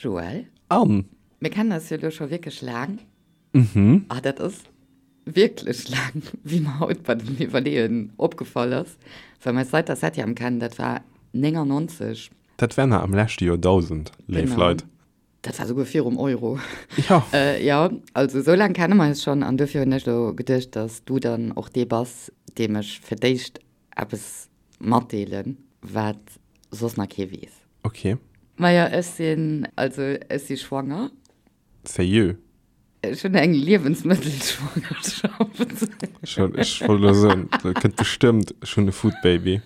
Joël? Anne! Mir kennen eis jo elo scho wierklech laang. Mhm. Ah, dat ass wierklech laang, wéi mer haut bei dem Iwwerleeën opgefall ass, well mer eis seit der Septième kennen, dat war 99. Dat war nach am leschte Joerdausend, léif Genau. Leit. Dat war souguer virum Euro. Jo. Jo, also esou laang kenne mer eis schonn an dofir hunn ech elo geduecht, dass du dann och dee bass, deem ech fir d'éischt eppes matdeelen, wat soss nach kee weess. Ok. Majo, ech sinn, also ech si schwanger. Sérieux? Ech hunn eng Liewensmëttelschwangerschaft. Ech ech wollt elo soen, dat kënnt bestëmmt, ech hunn e Foodbaby.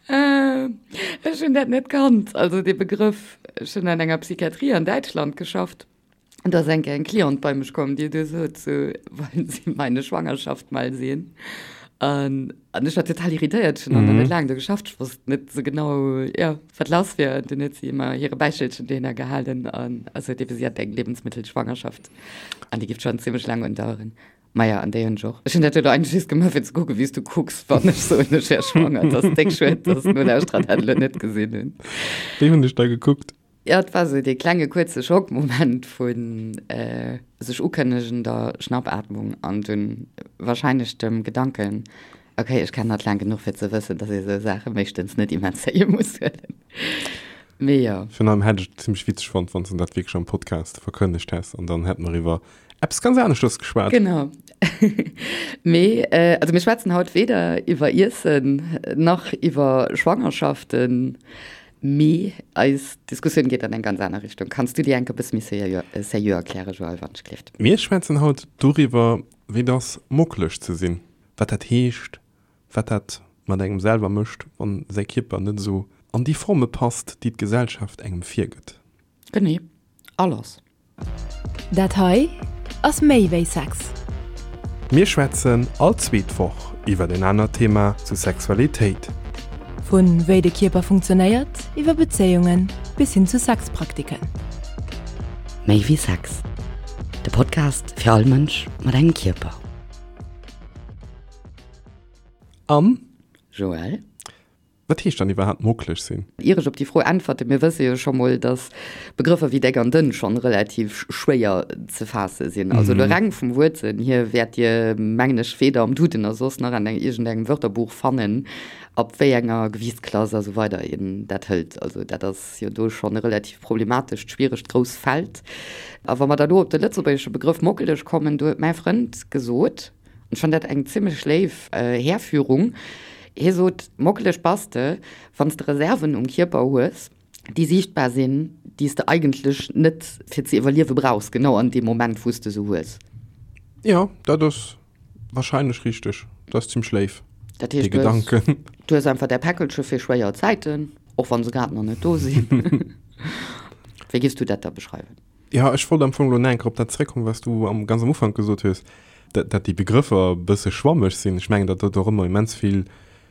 Ech hunn dat net kannt, also dee Begrëff. Ech hunn an enger Psychiatrie an Däitschland geschafft an do ass eng Kéier eng Cliente bei mech komm, déi du sot sou, Wollen Sie meine Schwangerschaft mal sehen? An An ech war total irritéiert, ech hunn nach net laang do geschafft, ech wosst net esou genau, jo, wat lass wier. An dunn huet si ëmmer hire Bäichelchen dohinner gehalen an also huet ebe si hat eng Lebensmittelschwangerschaft an déi géif schonn zimmlech laang undaueren. Maja, an déi hunn ech och. Ech hunn dat elo eigentlech just gemaach, fir ze kucken, wéi s du kucks, wann ech soen, ech wär schwanger. Et ass déck schued, dass d'Nolauschterer dat elo net gesinn hunn. Wéi hunn ech da gekuckt? Jo, et war esou dee klenge kuerze Schockmoment vu sech ukënnegender Schnappatmung an dunn warscheinlech dem Gedanken, ok, ech kennen hatt laang genuch fir ze wëssen, dass ee sou Saache meeschtens net immens séier muss huelen. Mee jo. Virun allem hätt ech et zimmlech witzeg fonnt, wann s de dat wierklech am Podcast verkënnegt häss an dann hätte mer iwwer eppes ganz aneschters geschwat. Genau. Mee also mir schwätzen haut weder iwwer Iessen nach iwwer Schwangerschaften. Mee eis Diskussioun geet an eng ganz aner Richtung. Kanns du déi enk e bësse méi sérieux erklären, Joël, wann ech gleeft? Mir schwätzen haut doriwwer, wéi et ass, mockeleg ze sinn, wat dat heescht, wat dat mat engem selwer mécht, wann säi Kierper net esou an déi Forme passt, déi d'Gesellschaft engem virgëtt. Genee, a lass! Dat hei ass méi wéi Sex. Mir schwätzen all zweet Woch iwwer en anert Thema zu Sexualitéit. Vu wéi de Kierper funktionéiert, iwwer Bezéiungen bis hin zu Sexpraktiken. Méi wéi Sex, de Podcast fir all Mënsch mat engem Kierper. An? Joël? Wat heescht dann iwwerhaapt mockeleg sinn? Ier ech op déi Fro äntwerte, mir wësse jo scho mol, datt Begrëffer wéi déck an dënn schonn relativ schwéier ze faasse sinn. Also elo reng vum Wuertsënn hier wäert Dir, mengen ech, weder am Duden nach soss nach an iergendengem Wörterbuch fannen, ab wéi enger Gewiichtsklass a sou weider een dat hëlt. Also dat ass jo do schonn e relativ problematescht, schwieregt, grousst Feld. A wa mer da lo op de lëtzebuergesche Begrëff mockeleg kommen, do huet mäi Frënd gesot, Ech fann dat eng zimmlech léif Härführung. Hie sot, Mockeleg bass de, wann s de Reserven um Kierper hues, déi siichtbar sinn, déi s de eigentlech net fir ze iwwerliewe brauchs, genau an deem Moment, wou s de se hues. Jo, dat ass warscheinlech richteg. Dat ass zimmlech léif, Dat dee heescht, du hues, Gedanken. du hues einfach däi Päckelche fir schwéier Zäiten, och wa se grad nach net do sinn. Wéi giffs du dat da beschreiwen? Jo, ech wollt am Fong elo nach eng Kéier op dat zeréckkommen, wat s du am, ganz am Ufank gesot hues, dat, dat déi Begrëffer e bësse schwammeg sinn. Ech mengen, dat huet och ëmmer immens vill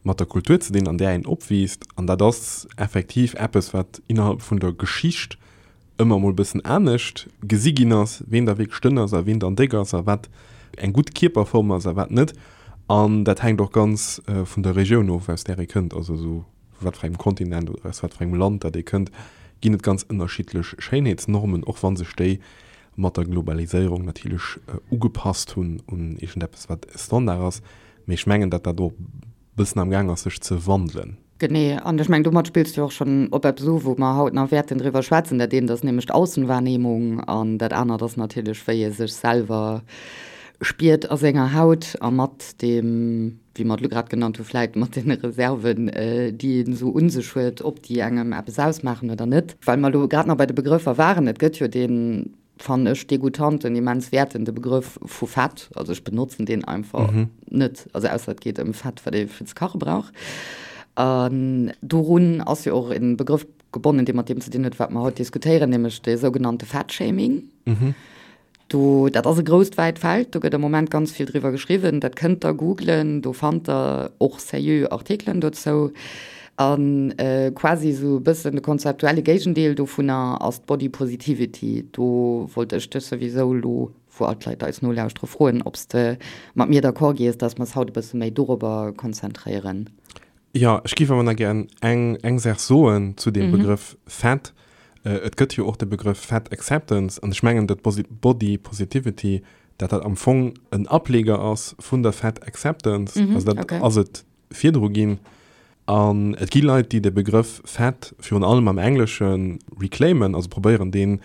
mat der Kultur ze dinn, an där een opwiisst. An dat ass effektiv eppes, wat innerhalb vun der Geschicht ëmmer emol e bëssen anescht gesi ginn ass, ween da wierklech dënn ass a ween dann déck ass a wat eng gutt Kierperform ass a wat net. An dat hänkt och ganz vun der Regioun of, aus där ee kënnt. Also esou vu wat fir engem Kontinent oder aus wat fir engem Land dat ee kënnt, ginn et ganz ënnerschiddlech Schéinheetsnormen, och wa sech déi mat der Globaliséierung natierlech ugepasst hunn un iergendeppes, wat Standard ass. Mee ech mengen, datt dat och e bëssen am Gaang ass, sech ze wandelen. Genee. An ech mengen, domat spills du och schonn op eppes u, wou mer haut nach wäerten driwwer schwätzen. Dat eent ass nämlech d'Aussenwahrnehmung an dat anert ass natierlech, wéi ee sech selwer spiert a senger Haut a mat deem, wéi mer et elo grad genannt hu vläit mat deene Reserven, déi een esou u sech huet, ob déi engem eppes ausmaachen oder net. Well mer elo grad nach bei de Begrëffer waren, et gëtt jo deen, fannen ech, degoutanten, immens wäertende Begrëff vu Fett. Also ech benotzen deen einfach net, also ausser et geet ëm Fett, wat ee fir ze kache brauch. An dorun ass jo och e Begrëff gebonnen, dee mat deem ze dinn huet, wat mer haut diskutéieren, nämlech de sougenannte Fettshaming. Do, dat ass e grousst wäit Feld, do gëtt am Moment ganz vill driwwer geschriwwen, dat kënnt der googlen, do fannt der och seriö Artikelen dozou. A quasi esou e bëssen de konzeptuelle Géigendeel dovunner ass d'Body Positivity. Do wollt ech dech souwisou elo, wou all d'Leit eis nolauschtere, froen, ob s de mat mir d'accord gees, dass mer s haut e bësse méi dorobber konzentréieren. Jo, ech géif awer nach gären eng, eng Saach soen zu deem Begrëff Fett. Et gëtt jo och de Begrëff Fat Acceptance an ech mengen, datt Body Positivity, dat dat am Fong en Ableger ass vun der Fat Acceptance, also dat ass et virdru ginn. An et gi Leit, déi de Begrëff fat virun allem am Englesche reclaimen, also probéieren deen,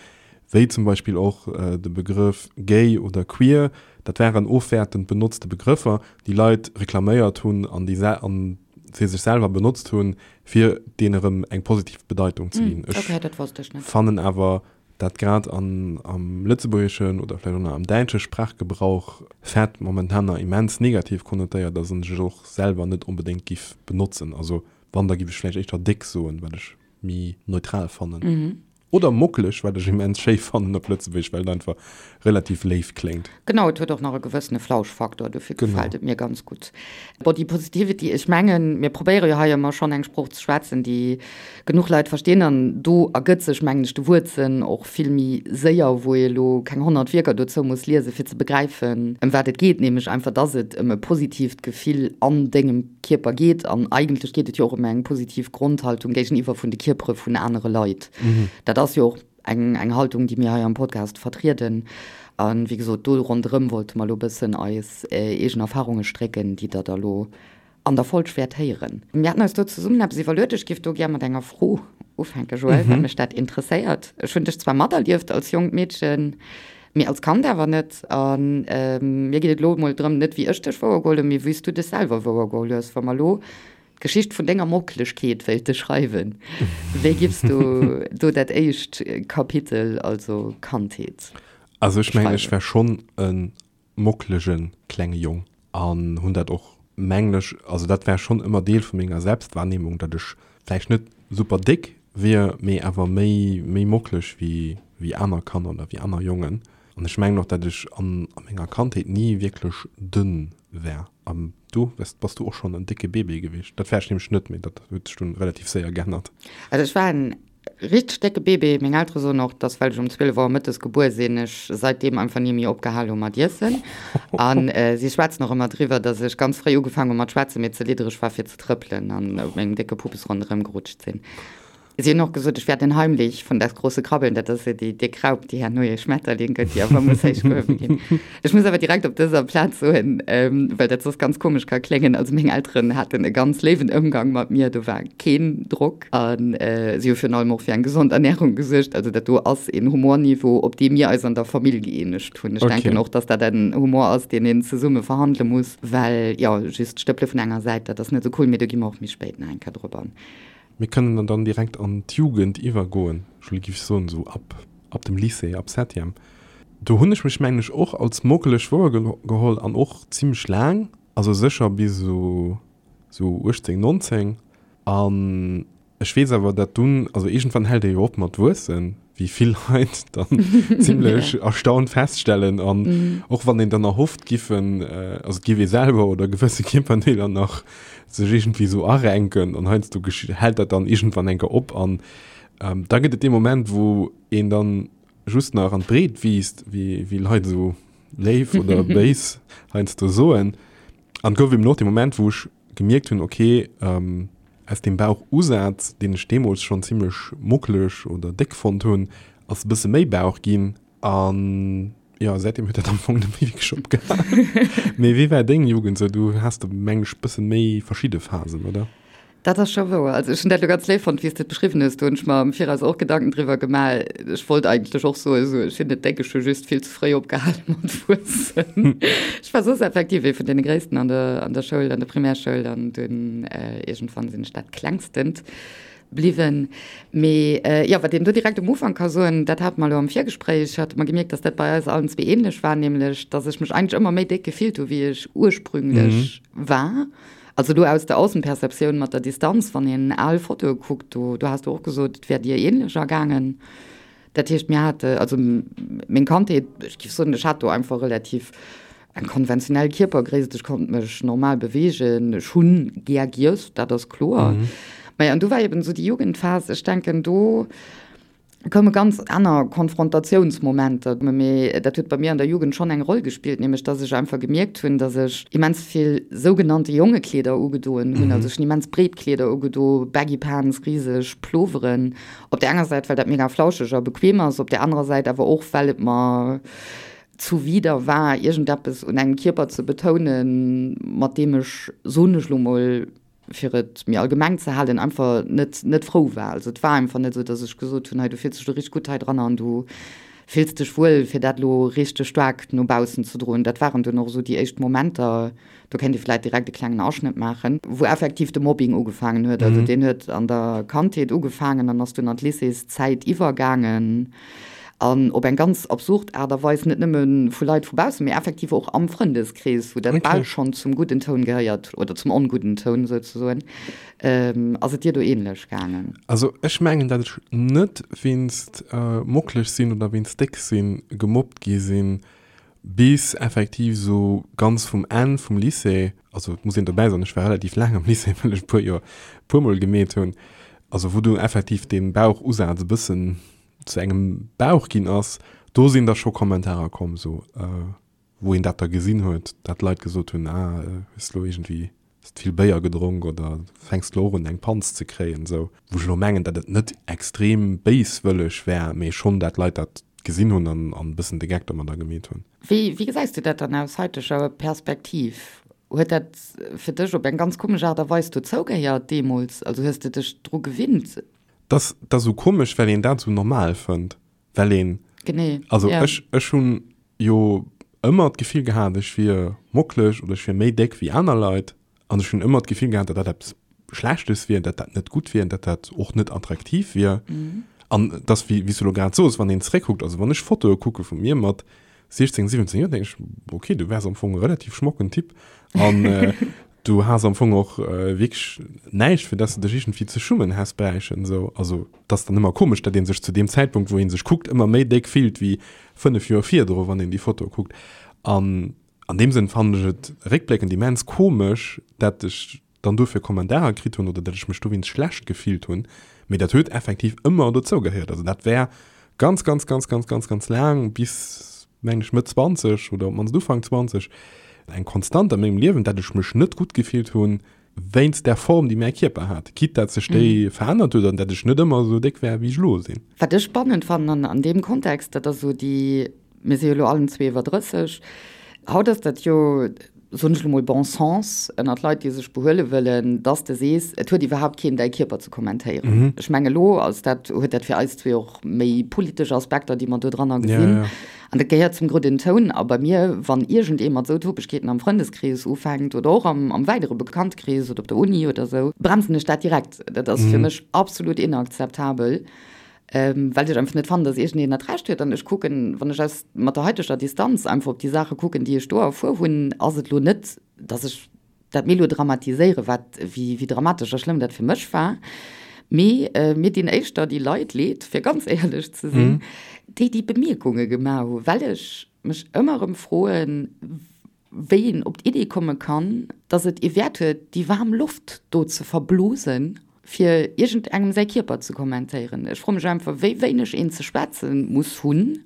wéi zum Beispill och de Begrëff gay oder queer, dat waren ofwäertend benotzte Begrëffer, déi Leit reklaméiert hunn an déi an se sech selwer benotzt hunn, fir deen erëm eng positiv Bedeitung ze ginn. Ech fannen awer, dat grad an am lëtzebuergeschen oder vläicht och nach am däitsche Sprachgebrauch fett momentan nach immens negativ konnotéiert ass an ech et och selwer net onbedéngt giff benotzen. Also wann, da giff ech vläicht éischter déck soen, wat ech méi neutral fannen. Oder mockeleg, wat ech immens schéi fannen op Lëtzebuergesch, well et einfach relativ léif kléngt. Genau, et huet och nach e gewëssene Flauschfaktor, dofir gefält et mir ganz gutt. Body Positivity, ech mengen, mir probéiere jo hei ëmmer schonn eng Sprooch ze schwätzen, déi genuch Leit verstinn an do ergëtt sech, mengen ech, de Wuertsënn och vill méi séier, wou ee elo keng 100 Wierker dozou muss liesen, fir ze begräifen, ëm wat et geet, nämlech einfach, dass et ëm e positiivt Gefill an dengem Kierper geet. An eigentlech geet et jo och ëm eng positiv Grondhaltung géigeniwwer vun de Kierpere vun anere Leit. Dat ass jo och eng, eng Haltung, déi mir hei am Podcast vertrieden. A wéi gesot, do ronderëm wollte mer elo e bëssen eis eegen Erfarunge strécken, déi Der da elo an der Folg wäert héieren. Mir haten eis do zesummen eppes iwwerluet. Ech géif do gär mat enger Fro ufänken, Joël, well mech dat interesséiert. Ech hunn dech zwar materlieft als jonkt Meedchen, mee als Kand awer net. A mir geet et elo emol drëm, net wéi ech dech wouergeholl hunn, mee wéi s du dech selwer wouergeholl hues. Wa mer elo d'Geschicht vun denger Mockelegkeet wéilte schreiwen, wéi giffs du do dat éischt Kapitel, also Kandheet, Also ech mengen, ech war schonn e mockelege klenge Jong an hunn dat och, mengen ech, also dat war schonn ëmmer Deel vu menger Selbstwahrnehmung, datt ech vläicht net super déck wier, mee awer méi, méi mockeleg wéi, wéi aner Kanner oder wéi aner Jongen. An ech mengen och, datt ech an a menger Kandheet ni wierklech dënn war. An du, wes, bass du och schonn en décke Bébé gewiescht? Dat war ech nämlech net, mee dat huet sech dunn relativ séier geännert. Also ech war en Richteg décke Bébé. Meng Eltere soen och, dass well ech um 12 Auer mëttes gebuer sinn, ech seitdeem einfach ni méi opgehal hu mat iessen. A si schwätzen och ëmmer driwwer, dass ech ganz fréi ugefaangen hu mat schwätzen, mee ze liddereg war fir ze trëppelen an op mengem décke Puppes ronderëm gerutscht sinn. Si hunn och gesot, ech wär den Heimlich von Das große Krabbeln, dat ass jo déi déck Raup, déi herno ee Schmetterling gëtt, déi awer muss héich gehuewe ginn. Ech muss awer direkt op dëser Plaz soen, well dat soss ganz komesch ka kléngen, also meng Elteren haten e ganz léiwen Ëmgang mat mir, do war keen Drock a si hu virun allem och fir eng gesond Ernärung gesuergt. Also dat do ass een Humorniveau, op dee mir eis an der Famill gëeenegt hunn. Ech denken och, dass dat en Humor ass, deen een zesumme verhandele muss, well jo, just d'Stëppele vun enger Säit, dat ass net esou cool. Mee do gi mer och méi spéit nach eng Kéier drop an. Mir kënnen dann direkt an d'Jugend iwwergoen, ech giff soen esou ab ab dem Lycée, ab Septième. Do hunn ech mech mengen ech och als mockeleg wouergeholl an och zimmlech laang, also sécher bis esou esou 18, 19. An ech weess awer, dat dunn, also iergendwann hält ee jo op mat wuessen, wéi vill Leit dann zimmlech erstaunt feststellen. An och wann een dann erhofft giffen, also et giff ee selwer oder gewësse Kierperdeeler nach sech iergendwéi esou arenken an heiansdo hält dat dann iergendwann eng Kéier op. An da gëtt et dee Moment, wou een dann just nach an d'Breet wiisst, wéi Leit esou léif oder béis heiansdo soen. An et gouf eben och dee Moment, wou ech gemierkt hunn, okay, aus deem Bauchusaz, deen ech deemools schonn zimmlech muckeleg oder déck fonnt hunn, ass e bësse méi Bauch ginn. An jo, säitdeem huet dat am Fong net méi wierklech opgehalen. Mee wéi war deng Jugend esou? Du has do, meng ech, bësse méi verschidde Phasen, oder? Dat ass scho wouer. Also ech hunn dat elo ganz léif fonnt, wéi s de et beschriwwen hues. Do hunn ech mer am Viraus och Gedanken driwwer gemaach. Ech wollt eigentlech och soen, esou, ech sinn net déck, ech hu just vill ze fréi opgehale mat wuessen. Ech war soss effektiv ee vun deene Gréissten an der, an der Schoul, an der Primärschoul an dunn iergendwann sinn ech dat Klengstent bliwwen. Mee jo, wat een do direkt um Ufank ka soen, dat hate mer elo am Virgespréich, hate mer gemierkt, dass dat bei eis allen zwee ähnlech war, nämlech dass ech mech eigentlech ëmmer méi déck gefillt hu wéi ech ursprünglech war. Also do aus der Aussenperceptioun mat der Distanz, wann een al Fotoe kuckt, do, do has du och gesot, et wär dir ähnlech ergaangen. Dat heescht, mir hate, also meng Kandheet, ech géif soen, ech hat do einfach relativ eng konventionell Kierpergréisst, ech konnt mech normal beweegen, ech hunn gär giess, dat ass kloer. Maja, an du war eben esou déi Jugendphas, ech denken do. Koume ganz aner Konfrontatiounsmomenter, mee dat huet bei mir an der Jugend schonn eng Roll gespillt, nämlech dass ech einfach gemierkt hunn, dass ech immens vill sougenannte Jongekleeder ugedoen hunn. Also ech hunn immens breet Kleeder ugedo, Baggy Pants, riseg Ploveren. Op där enger Säit, well dat mega flauscheg a bequem ass, op där anerer Säit awer och, well et mer zuwider war, iergendeppes un engem Kierper ze betounen, mat deem ech, soen ech lo mol, fir et méi allgemeng ze halen, einfach net, net frou war. Also et war einfach net esou, datt ech gesot hunn, hei du fills dech elo richteg gutt hei dran an du fills dech wuel, fir dat elo richteg staark no baussen ze droen. Dat waren dunn och esou déi éischt Momenter, do kéint ee vläicht direkt e klengen Aschnëtt maachen, wou effektiv de Mobbing ugefaangen huet. Also deen huet an der Kandheet ugefaangen an ass dunn an d'Lycéeszäit iwwergaangen. An op eng ganz absurd Aart a Weis, net nëmme vu Leit vu baussen, mee effektiv och am Frëndeskrees, wou dat bal schonn zum gudden Toun gehéiert, oder zum ongudden Toun souzesoen. Ass et dir do ähnlech gaangen? Also ech mengen, dat ech net wéinst mocklech sinn oder wéinst déck sinn gemobbt gi sinn, bis effektiv esou ganz vum Enn vum Lycée, also et muss een dobäi soen, ech war relativ laang am Lycée, well ech e puer Joer e puermol gemeet hunn, also wou du effektiv dee Bauchusaz e bëssen zu engem Bauch ginn ass, do sinn da scho Kommentarer komm, sou wou een dat da gesinn huet, dat Leit gesot hunn, ah hues lo iergendwéi hues vill Béier gedronk oder fänks lo och un eng Panz ze kréien, sou. Wou ech elo mengen, dat et net extrem béiswëlleg war, mee schonn dat Leit dat gesinn hunn an an e bëssen de Geck domadder gemeet hunn. Wéi wéi gesäis du dat dann aus haiteger Perspektiv? Huet dat fir dech op eng ganz komesch Aart a Weis dozou gehéiert deemools? Also hues de dech dru gewinnt? Dat ass esou komesch, well een dat esou normal fënnt, well een, Genee, also ja. ech, ech hunn jo ëmmer d'Gefill gehat, ech wier mocklech oder ech wier méi déck wéi aner Leit an ech hunn ëmmer d'Gefill gehat, datt dat eppes Schlechtes wier, datt dat net gutt wier, datt dat och net attraktiv wier. An et ass, wéi, wéi s du elo grad soos, wann een zeréckkuckt, also wann ech Fotoe kucke vu mir mat 16, 17 Joer, denken ech, okay, du waars am Fong e relativ schmocken Typ an du has am Fong och wierklech näischt, fir dass de dech iergendwéi ze schummen häss bräichen. Esou, also et ass dann ëmmer komesch, datt ee sech zu deem Zäitpunkt, wou ee sech kuckt, ëmmer méi déck fillt wéi 5 Joer virdru, wann een déi Foto kuckt. An an deem Sënn fannen ech et réckbléckend immens komesch, dat ech dann dofir Kommentarer kritt hunn oder datt ech mech dowéinst schlecht gefillt hunn, mee dat huet effektiv ëmmer dozou gehéiert. Also dat war ganz, ganz, ganz, ganz, ganz, ganz laang, bis mengen ech Mëtt 20 oder op d'mannst Ufank 20, eng Konstant a mengem Liewen, datt ech mech net gutt gefillt hunn wéinst där Form, déi mäi Kierper hat, quitte datt sech déi verännert huet an datt ech net ëmmer esou déck war, wéi ech elo sinn. Wat ech spannend fannen an deem Kontext, dat ass esou déi Mir si jo elo allen zwee iwwer 30. Haut ass dat jo, soen ech elo mol, bon sens ënnert Leit, déi sech behuele wëllen, dass de sees, et huet iwwerhaapt keen däi Kierper ze kommentéieren. Ech mengen, elo ass dat, huet dat fir eis zwee och méi politesch Aspekter, déi mer do dranner gesinn. An dat gehéiert zum gudden Toun. A bei mir, wann iergendee mat esou Topegkeeten am Frëndeskrees ufänkt oder och am, am weidere Bekanntkrees oder op der Uni oder esou, bremsen ech dat direkt. Dat ass fir mech absolut inakzeptabel. Well ech einfach net fannen, dass iergendeen dat Recht huet. An ech kucken, wann ech aus, mat der haiteger Distanz einfach op déi Saache kucken, déi ech do erfuer hunn, ass et elo net, dass ech dat melodramatiséiere wat, wéi, wéi dramatesch a schlëmm dat fir mech war. Mee mir dinn éischter déi Leit leed, fir ganz éierlech ze sinn, déi déi Bemierkunge gemaach hu, well ech mech ëmmer erëm froen, wéi een op d'Idee komme kann, dass et ee Wäert huet, déi waarm Loft do ze verblosen, fir iergendengem säi Kierper ze kommentéieren. Ech froe mech einfach, wéi wéineg een ze schwätze muss hunn,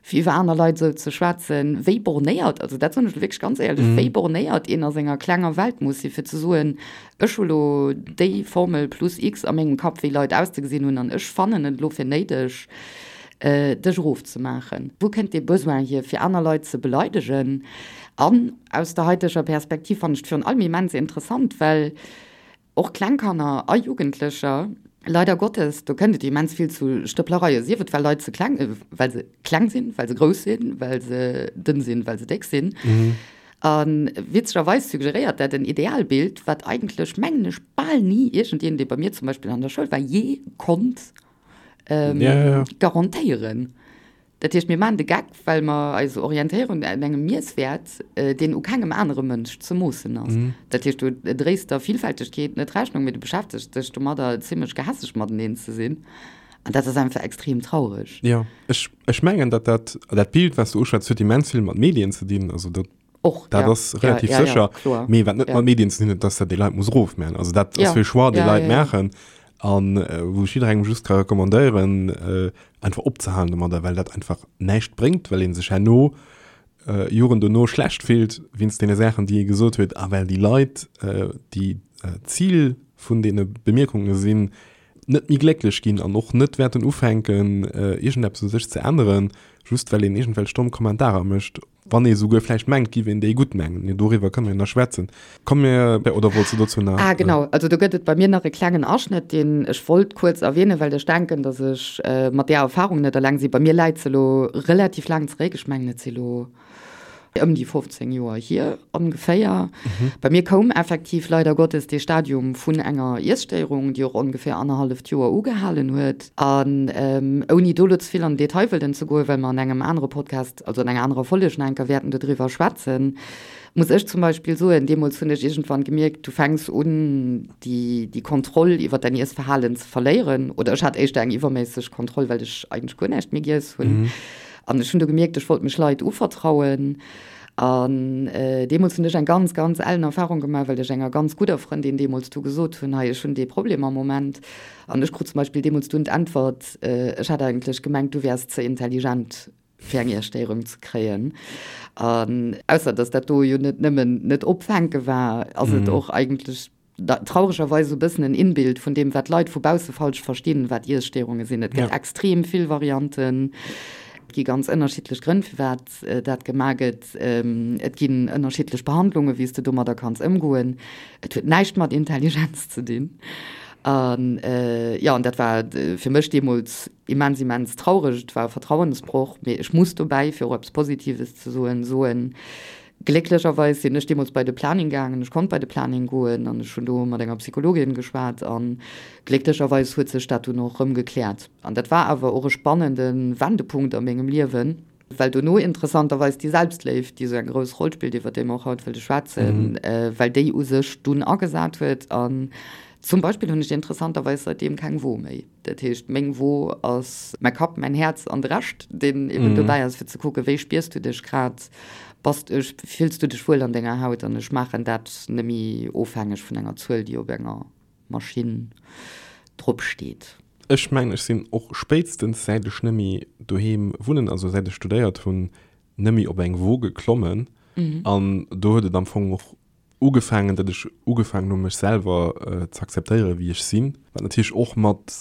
fir iwwer aner Leit esou ze schwätzen, wéi bornéiert, also dat soen ech elo wierklech ganz éierlech, wéi bornéiert een a senger klenger Welt muss sinn, fir ze soen, ech hu lo déi Formel plus X a mengem Kapp, wéi Leit auszegesinn hunn, an ech fannen et elo fir néideg, dech erofzemaachen. Wou kënnt dee Besoin hier, fir aner Leit ze beleidegen? An aus der haiteger Perspektiv fannen ech et virun allem immens interessant, well och kleng Kanner a Jugendlecher, leider Gottes, do kënnt et immens vill zu Stëpplereien, sief et well Leit ze kleng, well se kleng sinn, well se grouss sinn, well se dënn sinn, well se déck sinn. A witzegerweis suggeréiert dat en Idealbild, wat eigentlech, mengen ech, bal ni iergendeen, dee bei mir zum Beispill an der Schoul war, jee konnt ähm, ja, ja, ja. garantéieren. Dat heescht, mir maachen de Geck, well mer eis orientéieren un engem Miesswäert, äh, deen u kengem anere Mënsch ze moossen ass. Mhm. Dat heescht, du dréis der Vielfältegkeet net Rechnung, mee du beschäftegs dech domadder, zimmlech gehässeg mateneen ze sinn. An dat ass einfach extrem traureg. Ja, ech, ech mengen, dat dat, dat Bild, wat du uschwätz, huet immens vill mat Medien ze dinn. Also dat, Och, dat ja. ass relativ ja, ja, sécher. Ja, kloer. Mee wat net Ja. mat Medien ze dinn huet, dass dat déi Leit muss erofmaachen. Also dat Ja. ass e Choix, dee Ja, Leit ja, ja. maachen. An wou ech jidderengem just ka recommandéieren, einfach opzehalen domadder, well dat einfach näischt bréngt, well ee sech herno, Joren dono schlecht fillt wéinst deene Saachen, déi ee gesot huet a well déi Leit, déi Zil vun deene Bemierkunge sinn, net méi glécklech ginn an och net wäerten ufänken, iergendeppes u sech ze änneren, just well een iergendwelch domm Kommentarer mécht. Wann ee souguer vläicht mengt, giff een déi gutt mengen. Mee doriwwer kënne mir nach schwätzen. Komm mir, oder wollts du dozou nach? Ah genau, also do gëtt et bei mir nach e klengen Aschnëtt, deen ech wollt kuerz erwähnen, well ech denken, datt ech mat där Erfahrung net eleng sinn. Bei mir läit se elo relativ laang zeréck, ech mengen et si lo ëm déi 15 Joer hier ongeféier. Bei mir koum effektiv leider Gottes dee Stadium vun enger Iesstéierung, déi och ongeféier annerhalleft Joer ugehalen huet. An ouni do elo ze vill an den Detail wëllen ze goen, well mer an engem anere Podcast, also an enger anerer Folleg nach eng Kéier wäerten dodriwwer schwätzen, muss ech zum Beispill soen, deemools hunn ech iergendwann gemierkt, du fänks un, déi, déi Kontroll iwwer däin Iessverhalen ze verléieren. Oder ech hat éischter eng iwwerméisseg Kontroll, well ech eigentlech guer näischt méi giess hunn. An ech hunn du gemierkt, ech wollt mech Leit uvertrauen. An deemools hunn ech eng ganz, ganz ellen Erfahrung gemaach, well ech enger ganz gudder Frëndin deemools du gesot hunn, hei, ech hunn dee Problem am Moment. An ech krut zum Beispill deemools dunn d'Äntwert, ech hat eigentlech gemengt, du wäers ze intelligent, fir eng Iesstéierung ze kréien. An ausser dass dat do jo net nëmmen net opfänke war, ass et och eigentlech trauregerweis esou e bëssen en Inbild vun deem, wat d'Leit vu bausse falsch verstinn, wat Iesstéierunge sinn. Et gëtt extrem vill Varianten, et gi ganz ënnerschiddlech Grënn, firwat dat gemaach gëtt. Et ginn ënnerschiddlech Behandlungen, wéi s de domadder kanns ëmgoen. Et huet näischt mat Intelligenz ze dinn. An jo, an dat war fir mech deemools immens, immens traureg. Et war e Vertrauensbroch. Mee ech muss dobäi, fir och eppes Positives ze soen, soen, Glécklecherweis sinn ech deemools bei de Planning gaangen. Ech konnt bei de Planning goen an ech hunn do mat enger Psychologin geschwat a glécklecherweis huet sech dat dunn och erëm gekläert. An dat war awer och e spannende Wendepunkt a mengem Liewen, well dono interessanterweis déi Selbstléift, déi esou eng grouss Roll spillt, iwwer déi mer och haut wëlle schwätzen, well déi u sech dunn agesat huet. An zum Beispill hunn ech interessanterweis säitdeem keng Wo méi. Dat heescht, meng Wo ass mäi Kapp, mäin Häerz an de Rescht, deen eben dobäi ass, fir ze kucken, wéi spiers du dech grad, bass, fills du dech wuel an denger Haut? An ech maachen dat nëmme ofhängeg vun enger Zuel, déi op enger Maschinn drop steet. Ech mengen, ech sinn och spéitstens säit ech nëmme doheem wunnen, also säit ech studéiert hunn, nëmme op eng Wo geklommen. An do huet et am Fong och ugefaangen, datt ech ugefaangen hu mech selwer ze akzeptéieren, wéi ech sinn, wat natierlech och mat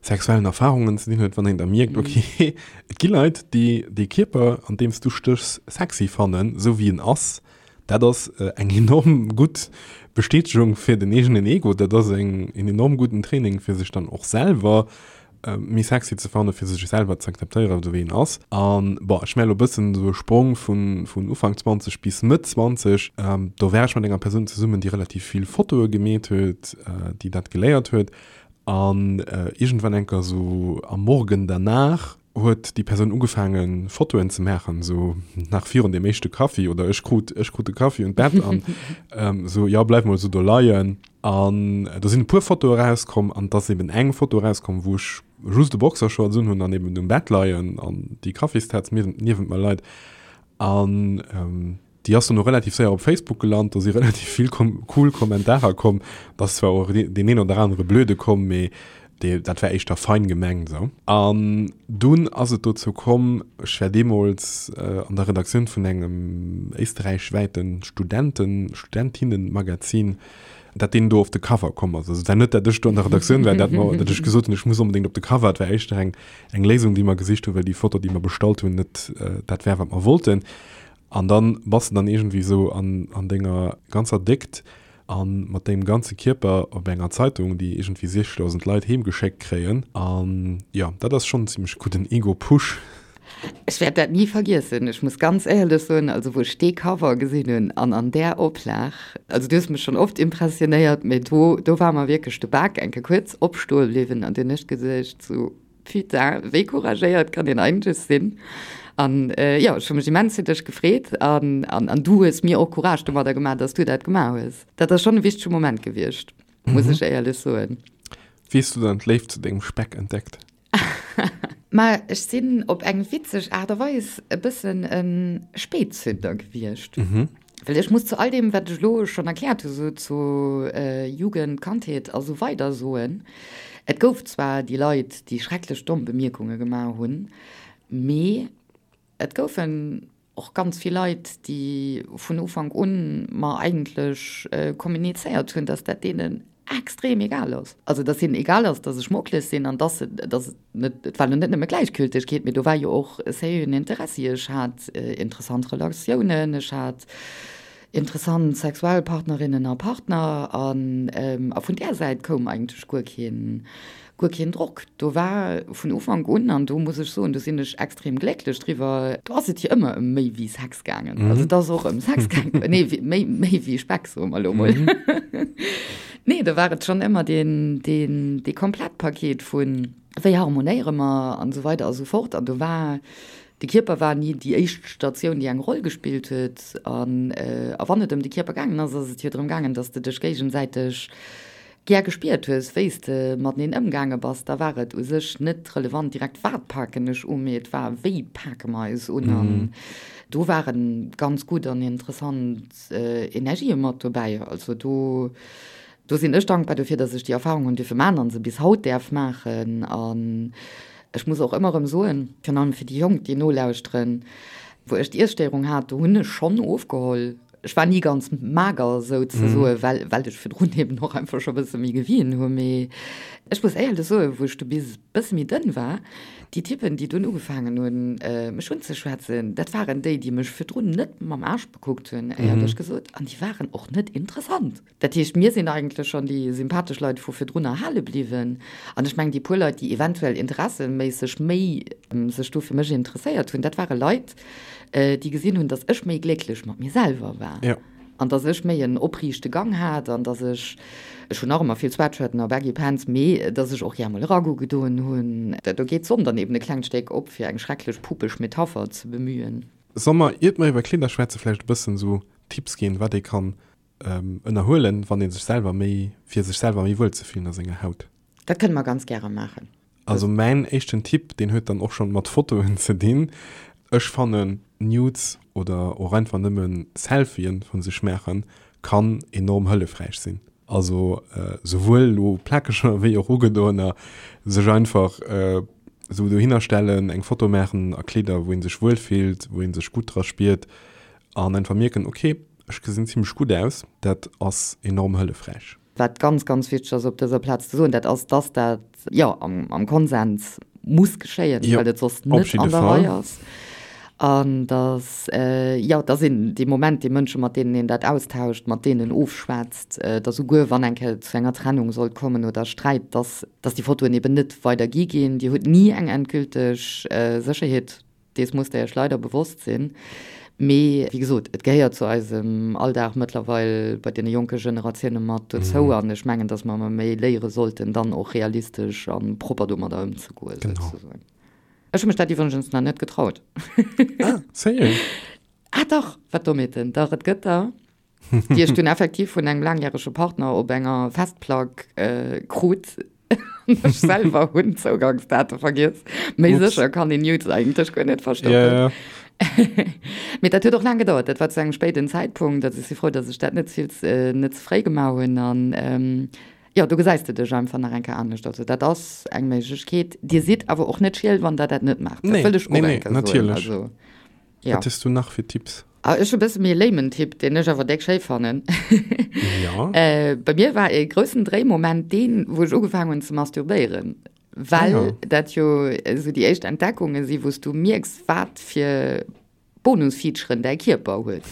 sexuellen Erfarungen ze dinn huet, wann een da mierkt, ok, et gi Leit, déi dee Kierper, an deem s du stéchs, sexy fannen, esou wéi en ass. Dat ass eng enorm gutt Bestätegung fir den eegenen Ego, dat ass en enorm gudden Training, fir sech dann och selwer méi sexy ze fannen, fir sech selwer ze akzeptéieren, esou wéi een ass. An bon, ech maache elo e bëssen esou e Sprong vun, vun Ufank 20 bis Mëtt 20. Do war ech mat enger Persoun zesummen, déi relativ vill Fotoe gemeet huet, déi dat geléiert huet. An iergendwann enker esou am Morgen danach huet déi Persoun ugefaangen, Fotoen ze maachen, esou nach virun deem éischte Kaffi, oder ech krut, ech krut de Kaffi un d'Bett an esou, jo, bleif mol esou do leien. An do sinn e puer Fotoe rauskomm an et ass eben eng Foto rauskomm, wou ech just e Boxershorts un hunn an eben um Bett leien an déi Kaffistaz niewent mer leit. An déi ass dono relativ séier op Facebook gelant. Do si relativ vill cool Kommentarer komm. Et ass zwar och deen een oder anere blöde komm, mee dee, dat war éischter fein gemengt esou. An dunn ass et dozou komm, ech war deemools an der Redaktioun vun engem éisterräichwäiten Studenten-, Studentinnenmagazin, dat deen do op de Cover komm ass. Also et war net, dat ech do an der Redaktioun war, dat mer, dat ech gesot hunn, ech muss onbedéngt op de Cover. Et war éischter eng, eng Léisung, déi mer gesicht hunn, well déi Foto, déi mer bestallt hunn, net dat war, wat mer wollten. An dann bass de dann iergendwéi esou an, an denger ganzer Déckt a mat dengem ganze Kierper op enger Zeitung, déi iergendwéi 60.000 Leit heemgeschéckt kréien. An jo, dat ass schonn en zimmlech gudden Ego-Push. Ech wäert dat ni vergiessen. Ech muss ganz éierlech soen, also wou ech dee Cover gesinn hunn an an där Oplag, also du hues mech schonn oft impressionéiert, mee do, do war mer wierklech de Bak eng Kéier kuerz opstoe bliwwen an dunn hu ech geduecht sou, Putain, wéi couragéiert kann een eigentlech sinn? An jo, ech hu mech immens fir dech gefreet an, an, an du hues mir och Courage domadder gemaach, dass du dat gemaach hues. Dat ass schonn e wichtege Moment gewiescht, muss ech éierlech soen. Wéi hues du dann d'Léift zu dengem Speck entdeckt? Ma ech sinn op eng witzeg Aart a Weis e bëssen e Spätzünder gewiescht. Well ech muss zu all deem, wat ech elo schonn erkläert hu sou zu Jugend, Kandheet a sou weider soen, Et gouf zwar déi Leit, déi schrecklech domm Bemierkunge gemaach hunn, mee et goufen och ganz vill Leit, déi vun Ufank un mer eigentlech kommunizéiert hunn, dass dat deenen extrem egal ass. Also dass hinnen egal ass, dass ech mocklech sinn an dass se, dass et net, et war lo net nëmme Gläichgültegkeet, mee do war jo och e sérieuxen Interessi. Ech hat interessant Relatiounen, ech hat interessant sexuell Partnerinnen a Partner an a vun där Säit koum eigentlech guer keen, guer keen Drock. Do war vun Ufank un, an do muss ech soen, do sinn ech extrem glécklech driwwer, do ass et jo ëmmer ëm méi wéi Sex gaangen. Also et ass och ëm Sex gaangen, nee, méi, méi wéi Speck, soe mer elo mol. Nee, do war et schonn ëmmer deen, deen, dee Komplettpaket vun, wéi harmonéiere mer an esou weider a sou fort. An do war, de Kierper war ni déi éischt Statioun, déi eng Roll gespillt huet. An, a wann et ëm de Kierper gaangen ass, ass et jo drëm gaangen, datt s de dech géigesäiteg gär gespiert hues, wéi s de mateneen ëmgaange bass, da war et u sech net relevant direkt wat paken ech u, mee et war wéi pake mer eis un. An do ware ganz gutt an interessant Energië mat dobäi. Also do, do sinn ech dankbar dofir, datt ech déi Erfahrung hunn dierfe maachen an se bis haut däerf maachen. An ech muss och ëmmer erëm soen, virun allem fir déi Jonk, déi nolauschteren, wou ech d'Iesstéierung hat, do hunn ech schonn ofgeholl. Ech war ni ganz mager souzesoen, well, well ech virdrun eben och einfach scho bësse méi gewien hu. Mee ech muss éierlech soen, wou ech du bis e bësse méi dënn war, déi Typen, déi dunn ugefaangen hunn, mech unzeschwätzen, dat waren déi, déi mech virdrun net mam Aarsch bekuckt hunn, éierlech gesot, an déi waren och net interessant. Dat heescht, mir sinn eigentlech schonn déi sympathesch Leit vu virdrun erhale bliwwen. An ech mengen, déi puer Leit, déi eventuell interesseméisseg méi sech do fir mech interesséiert hunn, dat ware Leit, déi gesinn hunn, datt ech méi glécklech mat mir selwer war an datt ech méi en opriichte Gang hat an datt ech, ech hunn nach ëmmer vill Sweatshirten a Baggy Pants, mee datt ech och gär mol e Ragout gedoen hunn. Do geet d'Sonn dann eben e klengt Stéck op, fir eng schrecklech pupeg Metapher ze bemühen. Solle mer, iert mer iwwer Kleeder schwätzen, vläicht e bëssen esou Tipps ginn, wat ee kann ënnerhuelen, wann ee sech selwer méi, fir sech selwer méi wuel ze fillen a senger Haut? Dat kënne mer ganz gäre maachen. Also mäin éischten Tipp, deen huet dann och schonn mat Fotoen ze dinn. Ech fannen Nudes oder och einfach nëmmen Selfien vun sech maachen kann enorm hëllefräich sinn. Also souwuel elo plakeger wéi och ugedoener, sech einfach esou dohinner stellen, eng Foto maachen a Kleeder wou een sech wuel fillt, wou een sech gutt dra spiert an einfach mierken, ok ech gesinn zimlech gutt aus. Dat ass enorm hëllefräich. Wat ganz, ganz wichteg ass op dëser Plaz ze soen, dat ass, dass dat, jo, am Konsens muss geschéien, well et soss net an der Rei ass. An dass, jo, dass een dee Moment déi Mënsche, mat deenen een dat austauscht, mat deenen ofschwätzt, dass souguer wann eng Kéier et zu enger Trennung sollt kommen oder Sträit, dass, dass déi Fotoen eben net weidergi ginn. Dir hutt ni eng endgülteg Sécherheet. Dees musst der iech leider bewosst sinn. Mee wéi gesot, et gehéiert zu eisem Alldag mëttlerweil bei deene jonke Generatioune mat dozou. An ech mengen, datt mer emmer méi léiere sollten, dann och realistesch a propper domadder ëmzegoen, souzesoen. Ech hu mech dat iwwregens nach net getraut. Ah, sérieux? Ah dach, wat Dommheeten. Dach, et gëtt der. déi ech dunn effektiv vun engem laangjärege Partner op enger Festplack krut. Ech selwer hunn d'Zougangsdate vergiess. Méi sécher kann een Nudes eigentlech guer net verstoppen. Yeah. Mee dat huet och laang gedauert. Dat war zu engem spéiden Zäitpunkt. Also ech si frou, datt ech dat net vill, net ze fréi gemaach hunn. An jo, do gesäis de dech einfach nach eng Kéier anescht. Also dat ass eng Méiglechkeet. Dir sidd awer och net schiel, wann der dat net maacht. Dat wëll ech och eng Kéier soen. Also. Ja. Wat hues du nach fir Tipps? Ah, ech hu bësse méi e lamen Tipp, deen ech awer déck schéi fannen. Ja. Äh, bei mir war e groussen Dréimoment deen, wou ech ugefaangen hunn ze masturbéieren. Well ah, ja. dat jo esou déi éischt Entdeckunge si, wou s du mierks, wat fir Bonusfeaturen däi Kierper huet.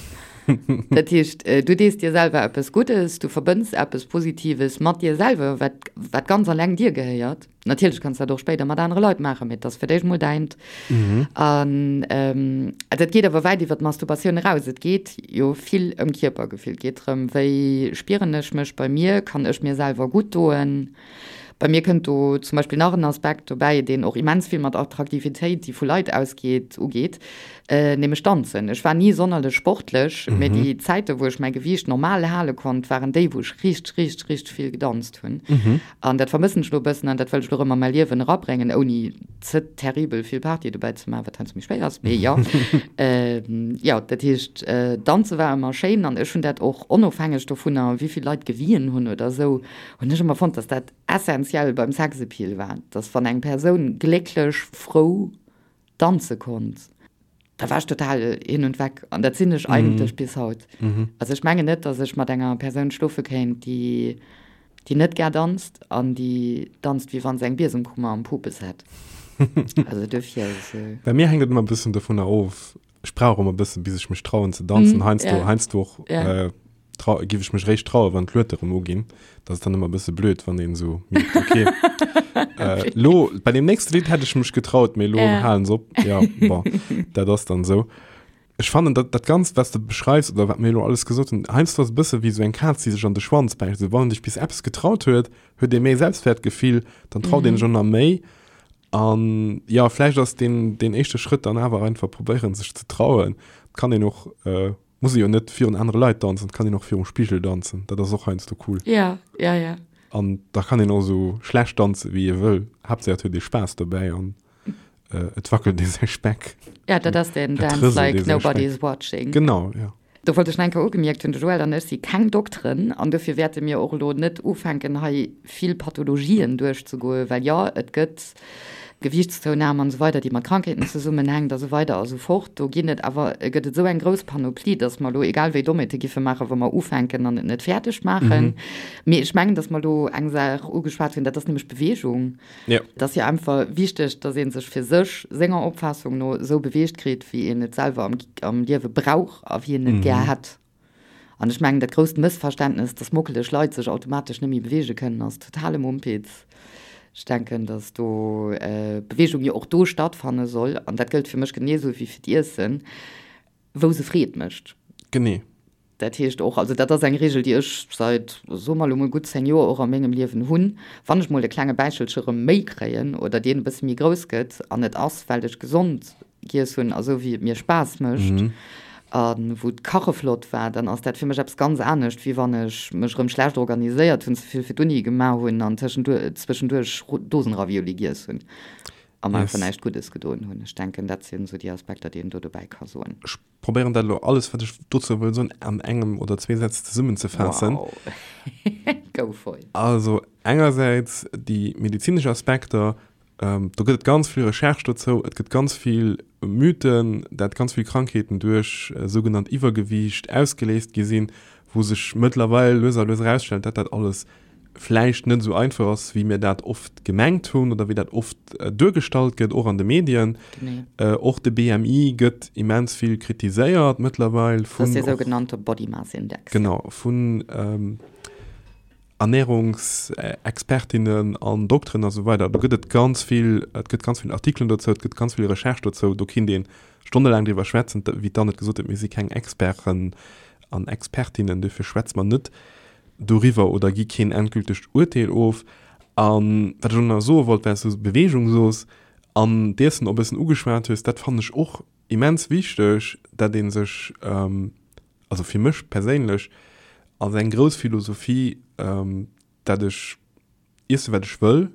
Dat heescht, äh, du dees dir selwer eppes Guddes, du verbënns eppes Positives mat dir selwer, wat, wat ganz alleng dir gehéiert. Natierlech kanns dat och spéider mat anere Leit maachen, mee et ass fir d'éischt mol däint. An dat geet awer wäit iwwer d'Masturbatioun eraus. Et geet jo vill ëm Kierpergefill. Et geet drëm, wéi spieren ech mech bei mir, kann ech mir selwer gutt doen? Bei mir kënnt do zum Beispill nach en Aspekt dobäi, deen och immens vill mat Attraktivitéit, déi vu Leit ausgeet, ugeet, nämlech Danzen. Ech war ni sonnerlech sportlech, mee déi Zäite wou ech mäi Gewiicht normal hale konnt, waren déi, wou ech richteg, richteg, richteg vill gedanzt hunn. An dat vermëssen ech elo e bëssen an dat wëll ech elo erëm a mäi Liewen erabréngen, ouni ze terribel vill Party dobäi ze maachen, wat heiansdo méi schwéier ass, mee jo. Jo, dat heescht, danze war ëmmer schéin an ech hunn dat och onofhängeg dovunner, wéi vill Leit gewien hunn oder esou, hunn ech ëmmer fonnt, dass dat essenziell. essentiell beim Sexappeal war, dass wann eng Persoun glécklech, frou danze konnt, da war ech total hin und weg. An dat sinn ech eigentlech bis haut. Also ech mengen net, dass ech mat enger Persoun schlofe kéint, déi, déi net gär danzt an déi danzt, wéi wa se eng Biesemkummer am Pupes hätt. Also dofir. Bei mir hänkt et ëmmer e bëssen dovunner of, Ech brauch ëmmer e bëssen, bis ech mech trauen ze danzen. Mm, heiansdo, yeah. heiansdo och yeah. äh, trau, giff ech mech réischt trauen, wann d'Luete rëm uginn. Dat ass dann ëmmer e bësse blöd, wann een esou mierkt, okay, äh, lo, bei dem nächste Lidd hätt ech mech getraut, mee lo yeah. halen se op. Ja, bon, dat ass dann esou. Ech fannen, dat, dat Ganzt, wat s de beschreifs oder wat mir elo alles gesot hunn, heiansdo ass e bësse wéi esou eng Kaz, déi sech an de Schwanz bäisst. Esou, wann een sech bis eppes getraut huet, huet ee méi Selbstwertgefill, dann traut mm -hmm. een sech och nach méi. An jo, vläicht ass deen, deen éischte Schrëtt dann awer einfach probéieren, sech ze trauen. Et kann een och, muss ee jo net virun anere Leit danzen, et kann een och virum Spigel danzen. Dat ass och heiansdo cool. Ja, ja, ja. An da kann een och esou schlecht danze wéi ee wëll, Haaptsaach et huet ee Spaass dobäi an et wackelt ee säi Speck. Ja, dat ass deen Dance like nobody is watching. Genau, ja. Do wollt ech nach eng Kéier ugemierkt hunn, de Joël an ech si keng Dokteren an dofir wäerte mir och elo net ufänken hei vill Pathologien duerchzegoen, well jo, et gëtt Gewiichtszounahm an esou weider, déi mat Krankheeten zesummenhänkt a sou weider a sou fort. Do ginn et awer, gëtt et esou eng grouss Panoplie, datt mer elo egal wéi Dommheete giffe maachen, wa mer ufänken an et net fäerdeg maachen. Mee ech mengen, datt mer elo eng Saach ugeschwat hunn, dat ass nämlech d'Beweegung. Ja. Et ass jo einfach wichteg, dass ee sech fir sech, senger Opfaassung no, esou beweegt kritt, wéi een et selwer am, am Liewe brauch a wéi een et gär hätt. An ech mengen, dat grousst Mëssverständnes, dass mockeleg Leit sech automatesch net méi beweege kënnen, ass totale Mumpitz. Ech denken, dass do Beweegung jo och do stattfanne soll, an dat gëllt fir mech genee esou wéi fir d'Iessen, wou se Freed mécht. Genee. Dat heescht och, also dat ass eng Regel, déi ech seit, soe mer elo mol, gutt 10 Joer och a mengem Liewen hunn, wann ech mol e klenge Bäichelche rëm méi kréien oder deen e bësse méi grouss gëtt an et ass, well ech gesond giess hunn a sou wéi et mir Spaass mécht a wou d'Kache flott war, dann ass dat fir mech eppes ganz anescht, wéi wann ech mech rëm schlecht organiséiert hunn, ze vill fir d'Uni gemaach hunn an tëschenduerch Dosenravioli giess hunn a mer einfach näischt Guddes gedoen hunn. Ech denken, dat sinn esou déi Aspekter, déi een do dobäi ka soen. Probéieren dat elo alles wat ech dozou wëll soen an engem oder zwee Sätz zesummenzefaassen. Wow. Go for it. Also engersäits déi medezinesch Aspekter, do gëtt et ganz vill Recherche dozou, et gëtt ganz vill Mythen, dat ganz vill Krankheeten duerch sougenannt Iwwergewiicht ausgeléist gi sinn, wou sech mëttlerweil lues a lues erausstellt, dat dat alles vläicht net esou einfach ass, wéi mir dat oft gemengt hunn oder wéi dat oft duergestallt gëtt, och an de Medien. Och de BMI gëtt immens vill kritiséiert mëttlerweil vun. Dat ass dee sougenannte Body Mass Index. Genau, vun Ernährungsexpertinnen an Dokteren a sou weider. Do gëtt et ganz vill, et gëtt ganz vill Artikelen dozou, et gëtt ganz vill Recherche dozou. Do kinnt ee stonnelaang driwwer schwätzen. Wéi d'Anne et gesot huet, mir si keng Experten an Expertinnen, duerfir schwätze mer net doriwwer oder gi keen endgültegt Urteel of. A wat ech och nach soe wollt, well s du Beweegung soos an d'Iessen och e bëssen ugeschwat hues, dat fannen ech och immens wichteg, dat ee sech, also fir mech perséinlech ass eng grouss Philosophie, dat ech iessen, wat ech wëll,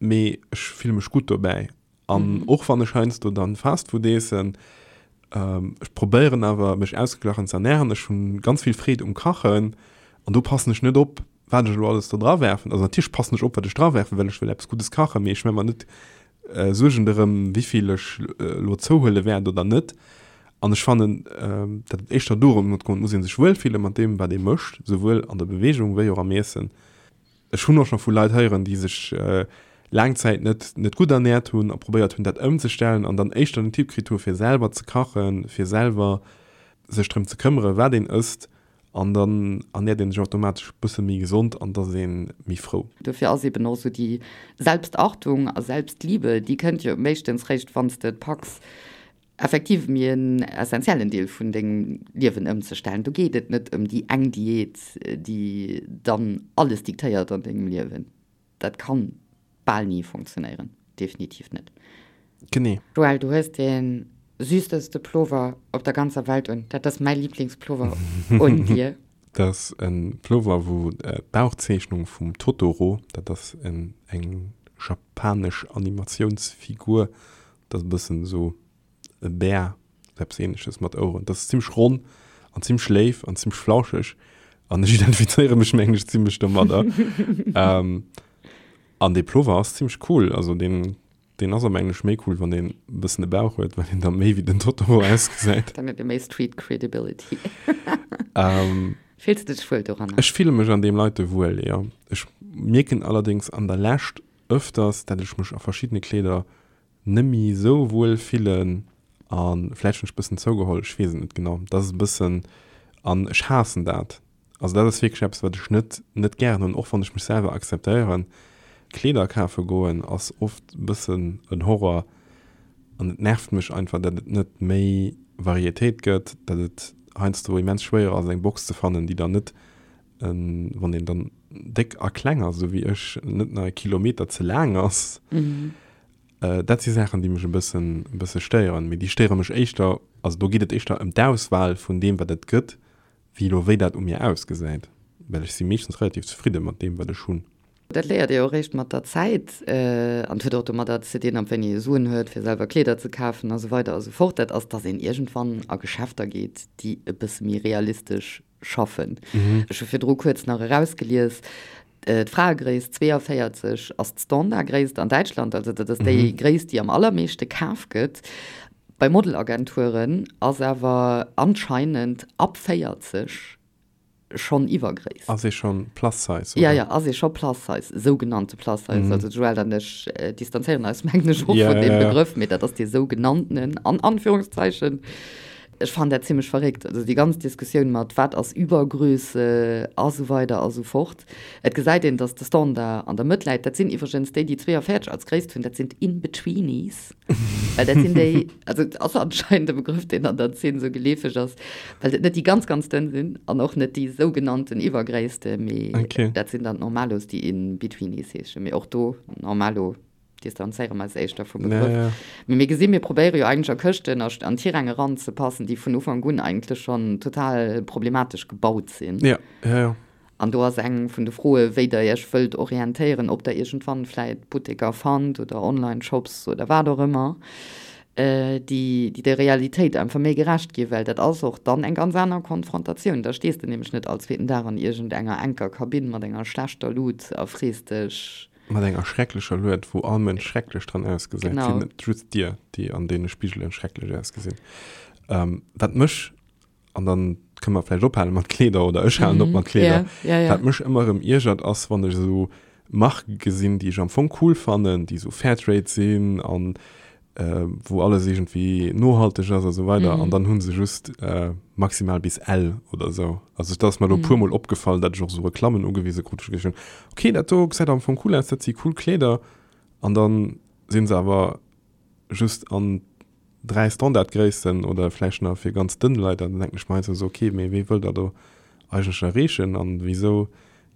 mee ech fille mech gutt dobäi. An och wann ech heiansdo dann Fast Food eessen, ech probéieren awer mech ausgeglachen ze ernähren. Ech hunn ganz vill Freed um Kachen an do passen ech net op, wat ech elo alles do dra werfen. Also natierlech passen ech op, wat ech dra werfen, well ech wëll eppes Guddes kachen, mee ech maache mer net Suergen dorëm, wéivill ech elo zouhuele wäert oder net. An ech fannen, datt et éischter dorëm geet, et muss ee sech wuelfille mat deem, wat ee mécht, souwuel an der Beweegung wéi och am Iessen. Ech hunn och scho vu Leit héieren, déi sech laang Zäit net net gutt ernäert hunn a probéiert hunn, dat ëmzestellen an dann éischter den Tipp kritt hu fir selwer ze kachen, fir selwer sech drëm ze këmmere wat een ësst an dann ernäert een sech automatesch e bësse méi gesond an et ass ee méi frou. Dofir ass eben och esou déi Selbstachtung a Selbstliebe, déi kënnt jo meeschtens réischt wann s de et packs, effektiv méi en essentiellen Deel vun dengem Liewen ëmzestellen. Do geet et net ëm déi eng Diät, déi dann alles diktéiert an dengem Liewen. Dat kann bal ni funktionéieren, definitiv net. Genee. Joël, du hues dee süßeste Plover op der ganzer Welt un. Dat ass mäi Lieblingsplover un dir. Dat ass e Plover, wou d'Bauchzeechnung vum Totoro, dat ass eng japanesch Animatiounsfigur, Dat ass e bëssen esou e Bär, esou eppes Ähnleches mat Oueren. Dat ass zimmlech ronn an zimmlech léif an zimmlech flauscheg an ech identifizéiere mech mengen ech zimmlech domadder. Ähm. An dee Plover ass zimmlech cool, also deen, deen ass am Englesch méi cool, wann deen e bëssen e Bauch huet, well deen da méi wéi den Totoro ausgesäit. Dann huet e méi Street Credibility. Fills de dech wuel doranner? Ech fille mech an deem Leite wuel, jo. Ech mierken allerdéngs an der Lescht ëfters, dat ech mech a verschiddene Kleeder nemmi sou wuel fillen an vläicht hunn ech bëssen zougeholl, ech weess et net genau, dat ass e bëssen an ech haassen dat, also dat ass wierklech eppes wat ech net net gären hunn, och wann ech mech selwer akzeptéieren. Kleeder kafe goen ass oft e bëssen en Horror an et nervt mech einfach dat et net méi Varietéit gëtt, dat et heiansdo immens schwéier ass eng Box ze fannen déi dann net wann een dann déck a kleng ass esou wéi ech, net nach e Kilometer ze laang ass. Dat si Saachen, déi mech e bëssen, e bësse stéieren. Mee déi stéiere mech éischter, also do geet et éischter ëm d'Auswahl vun deem, wat et gëtt, wéi elo wéi dat u mir ausgesäit. Well ech si meeschtens relativ zefridde mat deem, wat ech hunn. Dat léiert ee och eréischt mat der Zäit an et huet och domadder ze dinn, ab wéini ee Suen huet, fir selwer Kleeder ze kafen a sou weider a sou fort. Dat ass, dass een iergendwann a Geschäfter geet, déi e bësse méi realistesch schaffen. Ech hu virdru kuerz nach erausgelies, d'Fraegréisst 42 ass d'Standardgréisst an Däitschland, also dat ass déi Gréisst, déi am allermeeschte kaf gëtt. Bei Modelagenturen ass awer anscheinend ab 40 schonn Iwwergréisst. Ass ee schonn Plus Size, oder? Ja, ja, ass ee scho Plus Size, sougenannte Plus Size. Also d'Joëlle an ech distanzéieren eis, mengen ech, och vun deem Begrëff, mee dat ass dee sougenanntenen, an Anführungszeichen. Ech fannen dat zimlech verréckt, also déi ganz Diskussioun mat wat ass Übergröße a sou weider a sou fort. Et gesäit een, datt de Standard an der Mëtt läit. Dat sinn iwwregens déi, déi 42 als Gréisst hunn, dat sinn d'In-Betweenies, well dat sinn déi, also et ass anscheinend e Begrëff, deen an der Zeen esou geleefeg ass, well et net déi ganz, ganz dënn sinn an och net déi sougenannten Iwwergréisste, mee dat sinn dann d'Normalos, déi In-Betweenies heeschen. Mee och do, Normalo. distanzéiere mer eis éischter vum Begrëff. Ja, ja. Mee mir gesinn, mir probéiere jo eigentlech a Këschten a an Tiräng eranzepassen, déi vun Ufank un eigentlech schonn total problematesch gebaut sinn. Ja, ja, ja. An do ass eng vun de Froe wéi Der Iech wëllt orientéieren, ob Der iergendwann vläit Butteker fannt oder Online-Shops oder wat och ëmmer, déi déi der Realitéit einfach méi gerecht ginn, well dat ass och dann eng ganz aner Konfrontatioun. Da stees de nämlech net all zweeten Dag an iergendenger enker Kabinn mat enger schlechter Lut a frees dech, Mat enger schrecklecher Lued, wou all Mënsch schrecklech dran ausgesäit. Genau. Sinn net just dir, déi an deene Spigelen schrecklech ausgesinn. Ähm, wat mech, an dann kënne mer vläicht ophale mat Kleeder, oder ech halen op mat Kleeder. Ja, ja, ja. Wat mech ëmmer erëm iergert, ass, wann ech esou Marke gesinn, déi ech am Fong cool fannen, déi esou Fairtrade sinn an wou alles iergendwéi nohalteg ass a sou weider, an dann hu se just maximal bis L oder sou. Also dat ass mer elo e puermol opgefall, dat ech och sou Reklammen ugewise krut, wou ech geduecht hunn, okay, dat do gesäit am Fong cool aus, dat si cool Kleeder, an dann si se awer just an 3 Standardgréissten oder vläicht nach fir ganz dënn Leit, an dann denken ech mer heiansdo sou, okay, mee wee wëllt der do eigentlech erreechen an wisou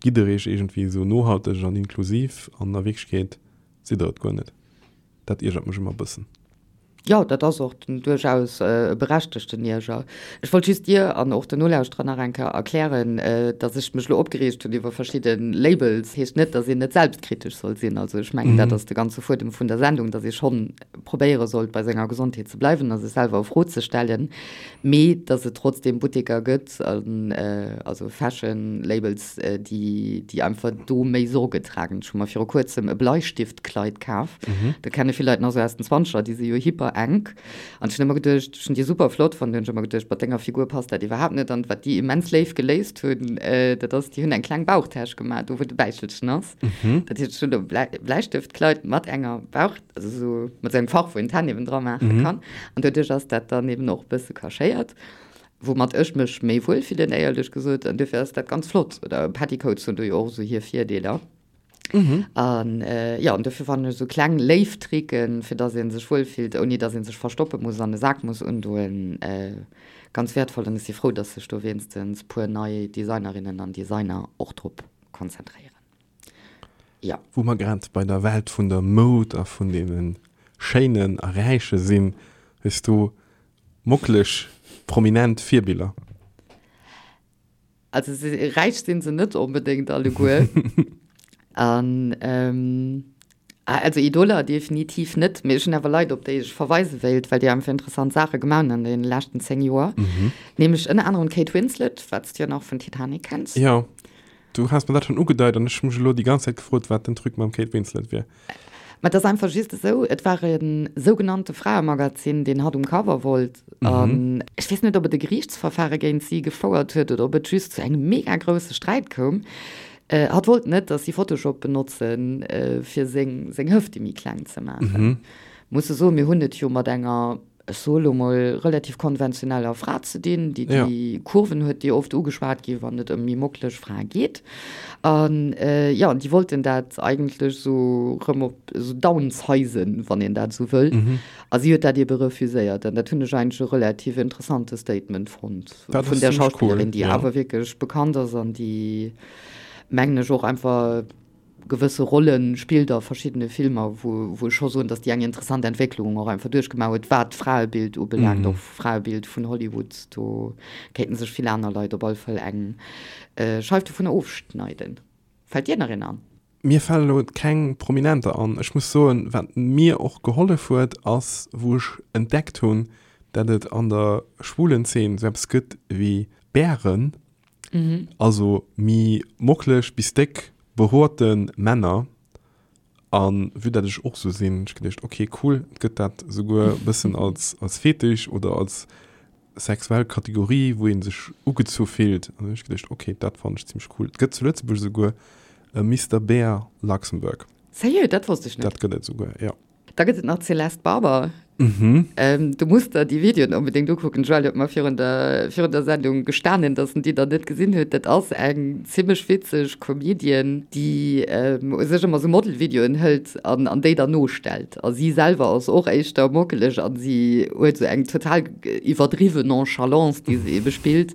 gitt der iech iergendwéi sou nohalteg an inklusiv an a Wierklechkeet sidd der et guer net. Dat iergert mech ëmmer e bëssen. Jo, dat ass och duerchaus e berechtegten Ierger. Ech wollt just dir an och den Nolauschterer nach eng Kéier erklären, datt ech mech elo opgereegt hunn iwwer verschidde Labels, heescht net, datt een net selbstkritesch soll sinn. Also ech mengen, dat ass de ganze Fuedem vun der Sendung, datt ee schonn probéiere sollt, bei senger Gesondheet ze bleiwen a sech selwer a Fro ze stellen, mee datt et trotzdeem Butteker gëtt, also Fashion Labels, déi, déi einfach do méi Sorge tragen. Ech hu mer viru kuerzem e Bleistiftkleid kaf. Mhm. Dat kenne vill Leit nach sou aus den Zwanzeger, déi si jo hyper enk. An ech hunn ëmmer geduecht, ech hunn déi super flott fonnt, hunn ech ëmmer geduecht, mat denger Figur passt dat iwwerhaapt net. An wat déi immens léif geléist hunn, dat ass, déi hunn eng kleng Bauchtäsch gemaach, do wou de Bäichelchen ass. Mhm. Dat heescht, ech hunn e Blei, Bleistëftkleid mat enger Bauch, also sou mat sou engem Fach, wou een d'Hänn eben dra maache mhm. kann. An doduerch ass dat dann eben och e bësse cachéiert. Woumat ech mech méi wuel fillen, éierlech gesot. An duerfir ass dat ganz flott. Oder Petticoats hunn do jo och esou hir Virdeeler. An jo, an duerfir fannen ech esou kleng léif Tricken, fir dass ee sech wuel fillt, ouni dass ee sech verstoppe muss an e Sak muss undoen, ganz wäertvoll. An ech si frou, dass sech do wéinstens puer nei Designerinnen an Designer och drop konzentréieren. Jo. Wou mer grad bei der Welt vun der Moud a vun deene Schéinen a Räiche sinn, hues du Mocklech prominent Virbiller. Also räich sinn se net onbedéngt alleguer. An also Idoler definitiv net, mee ech hunn awer Leit op déi ech verweise wéilt, well déi einfach interessant Saache gemaach hunn an deene leschten 10 Joer. Nämlech ënner anerem d'Kate Winslet, wat s de jo nach vun Titanic kenns. Jo. Du has mer dat schonn ugedeit an ech hu mech elo déi ganz Zäit gefrot, wat den Truc mam Kate Winslet wier. Mä et ass einfach just esou, et war e sougenannte Fraemagazin, deen hatt um Cover wollt. An ech weess net, ob et e Geriichtsverfare géint si gefouert huet oder ob et just zu engem mega grousse Sträit koum. Hatt wollt net, datt si Photoshop benotzen, fir seng Hëfte méi kleng ze maachen. Muss e soen, mir hunn et jo mat enger ech soe lo mol, relativ konventioneller Fra ze dinn, déi déi Kurven huet, déi oft ugeschwat ginn, wann et ëm méi mockeleg Frae geet. An jo, an déi wollten dat eigentlech esou rëm op esou downsizen, wann een dat esou wëll. A si huet dat ebe refuséiert. An dat hunn ech eigentlech e relativ interessante Statement fonnt vun där Schauspillerin, déi awer wierklech bekannt ass an déi, mengen ech, och einfach, gewësse Rolle spillt a verschiddene Filmer, wou wou ech scho soen, datt déi eng interessant Entwécklung och einfach duerchgemaach huet, wat d'Fraebild ubelaangt, och Fraebild vun Hollywood. Do kéinten sech vill aner Leit op alle Fall eng Scheif dovunner ofschneiden. Fält dir nach een an? Mir fale elo keng Prominenter an. Ech muss soen, wat mir och gehollef huet, ass wou ech entdeckt hunn, dat et an der schwulen Zeen esou eppes gëtt wéi Bären, Also mi mocklech bis déck behoorten Männer. An vue dat ech och sou sinn, hunn ech geduecht, ok cool, et gëtt dat souguer bëssen als als Fetisch oder als sexuell Kategorie, wou een sech ugezu fillt. An hunn ech geduecht, ok, dat fannen ech zimmlech cool. Et gëtt zu Lëtzebuerg souguer e Mister Bear Luxembourg. Sérieux? Dat wosst ech net. Dat gëtt et souguer, jo. Da gëtt et nach d'Céleste Barber. Du muss der déi Videoen onbedéngt ukucken. D'Joëlle huet mer virun der, virun der Sendung gestanen, dass en déi nach net gesinn huet. Dat ass eng zimmlech witzeg Comedian, déi u sech ëmmer sou Model-Videoen hëlt an, an déi dann nostellt. A si selwer ass och éischter mockeleg an si huet sou eng total iwwerdriwwen Nonchalance, déi se ebe spillt,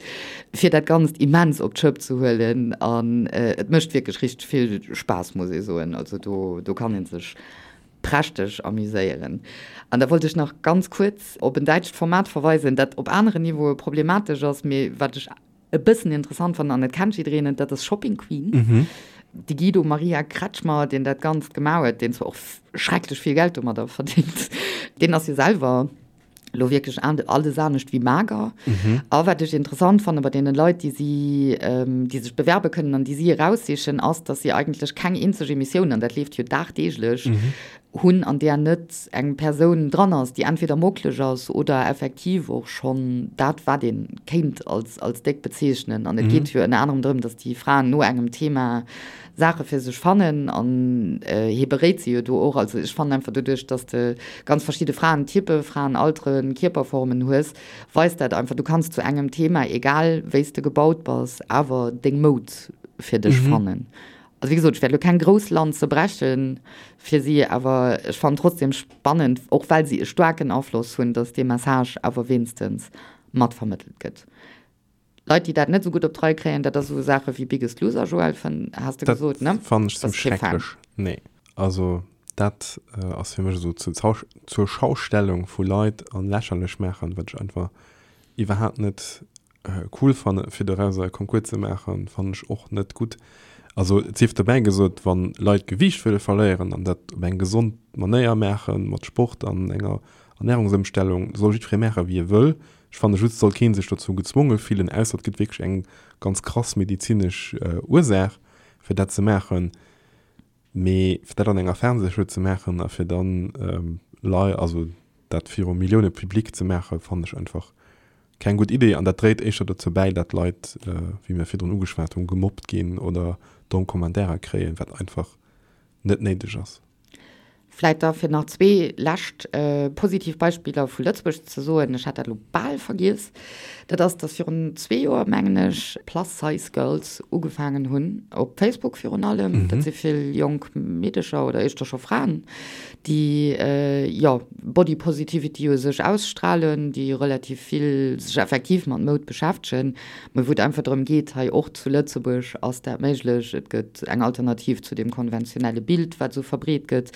fir dat Ganzt immens op d'Schëpp ze huelen. An et mécht wierklech richteg vill Spaass, muss ee soen. Also do, do kann ee sech prächteg amuséieren. An da wollt ech nach ganz kuerz op en däitscht Format verweisen, dat op aneren Niveaue problematesch ass, mee wat ech e bëssen interessant fannen, an et kennt jiddereen et, dat ass Shopping Queen. De Guido Maria Kretschmer, deen dat Ganzt gemaach huet, deen zwar och schrecklech vill Geld domadder verdéngt, deen ass jo selwer, lo wierklech alles anescht wéi mager. A wat ech interessant fanne bei deene Leit, déi si, déi sech bewerbe kënnen an déi si eraussichen, ass, datt si eigentlech keng eenzeg Emissioun, an dat leeft jo dagdeeglech, hunn, an där net eng Persoun dran ass, déi entweder mockleg ass oder effektiv och schonn dat, wat ee kéint als, als déck bezeechnen. An et geet jo ënner anerem drëm, datt déi Fraen no engem Thema Saache fir sech fannen an hie beréit se jo do och. Also ech fannen einfach doduerch, dass de ganz verschidde Fraentypen, Fraenalteren, Kierperformen hues, weist dat einfach, du kanns zu engem Thema, egal wéi s de gebaut bass, awer deng Moud fir dech fannen. Also wéi gesot, ech wäert elo keng grouss Lanze breche fir si, awer ech fannen trotzdem spannend, och well si e staarken Afloss hunn, dass dee Message awer wéinstens mat vermëttelt gëtt. Leit, déi dat net esou gutt op d'Rei kréien, dat ass esou Saache wéi Biggest Loser, Joël, fënn, has de gesot, ne? Dat fannen ech zimmlech schrecklech. Nee, also dat ass fir mech esou zur zur Schaustellung vu Leit an lächerlech maachen, wat ech einfach iwwerhaapt net cool fannen. Fir dorauser e Concours ze maachen, fannen ech och net gutt. Also et sief dobäi gesot, wann Leit Gewiicht wëlle verléieren an dat op eng gesond Manéier maachen, mat Sport an enger Ernärungsëmstellung, soll jiddweree maachen, wéi e wëll. Ech fanne just, et soll kee sech dozou gezwonge fillen, ausser et gëtt wierklech eng ganz krass medezinesch Ursaach, fir dat ze maachen. Mee fir dat an enger Fernsehshow ze maachen a fir dann lei, also dat viru Millioune Public ze maachen, fannen ech einfach keng gutt Idee. An dat dréit éischter dozou bäi, dat Leit, wéi mir virdrun ugeschwat hunn, gemobbt ginn oder domm Kommentairer kréien, wat einfach net néideg ass. Vläit da fir nach zwee lescht positiv Beispiller vu Lëtzebuerg ze soen, ech hat dat elo bal vergiess, dat ass, datt virun zwee Joer, mengen ech, Plus Size Girls ugefaangen hunn, op Facebook virun allem, dat si vill jonk Meedecher oder éischter scho Fraen, déi, jo, Body Positivity u sech ausstrahlen, déi relativ vill sech effektiv mat Moud beschäftegen, Mä wou et einfach drëm geet, hei och zu Lëtzebuerg ass dat méiglech, et gëtt eng Alternativ zu deem konventionelle Bild, wat esou verbreet gëtt.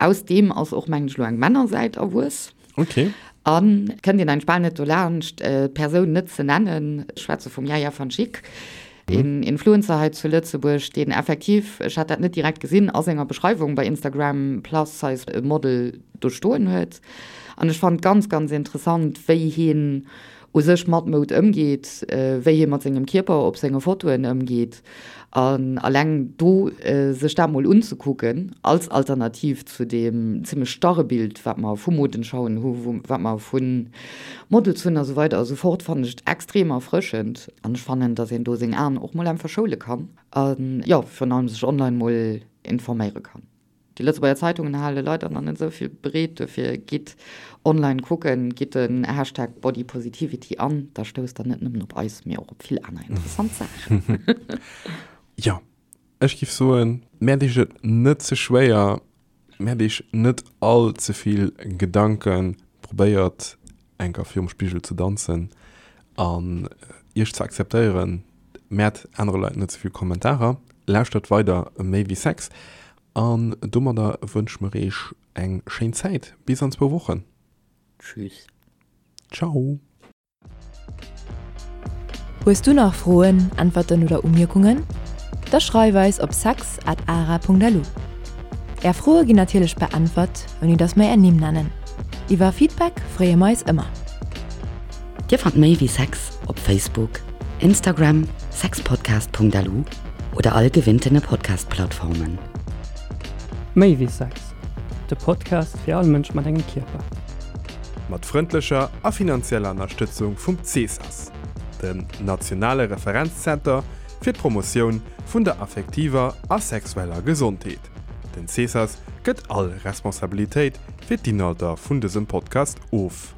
Aus deem ass och, mengen ech, elo eng Männersäit erwuess. Okay. An et kënnt een eigentlech bal net dolaanscht, d'Persoun net ze nennen. Ech schwätze vum Yaya van Schick, een Influencer hei zu Lëtzebuerg, deen effektiv, ech hat dat net direkt gesinn, a senger Beschreiwung bei Instagram Plus Size Model do stoen huet. An ech fannen et ganz, ganz interessant, wéi hien. u sech mat Moud ëmgeet, wéi hie mat sengem Kierper op senge Fotoen ëmgeet. An alleng do sech dat mol unzekucken als Alternativ zu deem zimmlech starre Bild, wat mer vu Modenschauen hu, wat mer vu Models hunn a sou weider a sou fort, fannen ech et extrem erfrëschend. An ech fannen, datt een do seng Aen och mol einfach schoule kann a jo, virun allem sech online mol informéiere kann. Déi Lëtzebuerger Zeitungen hale leider nach net esou vill bereet, dofir gitt online kucken, gitt den Hashtag Bodypositivity an, da stousst der net nëmmen op eis, mee och op vill aner interessant Saachen. Jo, ech giff soen, mäert iech et net ze schwéier, mäert iech net all ze vill Gedanken, probéiert enker virum Spigel ze danzen an iech ze akzeptéieren, Mäert anere Leit net ze vill Kommentarer, lauschtert weider Méi wéi Sex an domadder wënsche mer eech eng schéin Zäit bis an zwou Wochen. Tschüss. Ciao. Hues du nach Froen, Äntwerten oder Umierkungen? Da schreif eis op sex at ara.lu. Är Froe ginn natierlech beäntwert, ouni dass mer är Nimm nennen. Iwwer Feedback freeë mer eis ëmmer. Dir fannt méi wéi Sex op Facebook, Instagram, sexpodcast.lu oder all gewinntene Podcast-Plattformen. Méi wéi Sex, de Podcast fir all Mënsch mat engem Kierper. Mat frëndlecher a finanzieller Ënnerstëtzung vum CSAS, dem nationale Referenzzenter fir d'Promotioun vun der affektiver a sexueller Gesondheet. Den CSAS gëtt all Responsabilitéit fir d'Inhalter vun dësem Podcast of.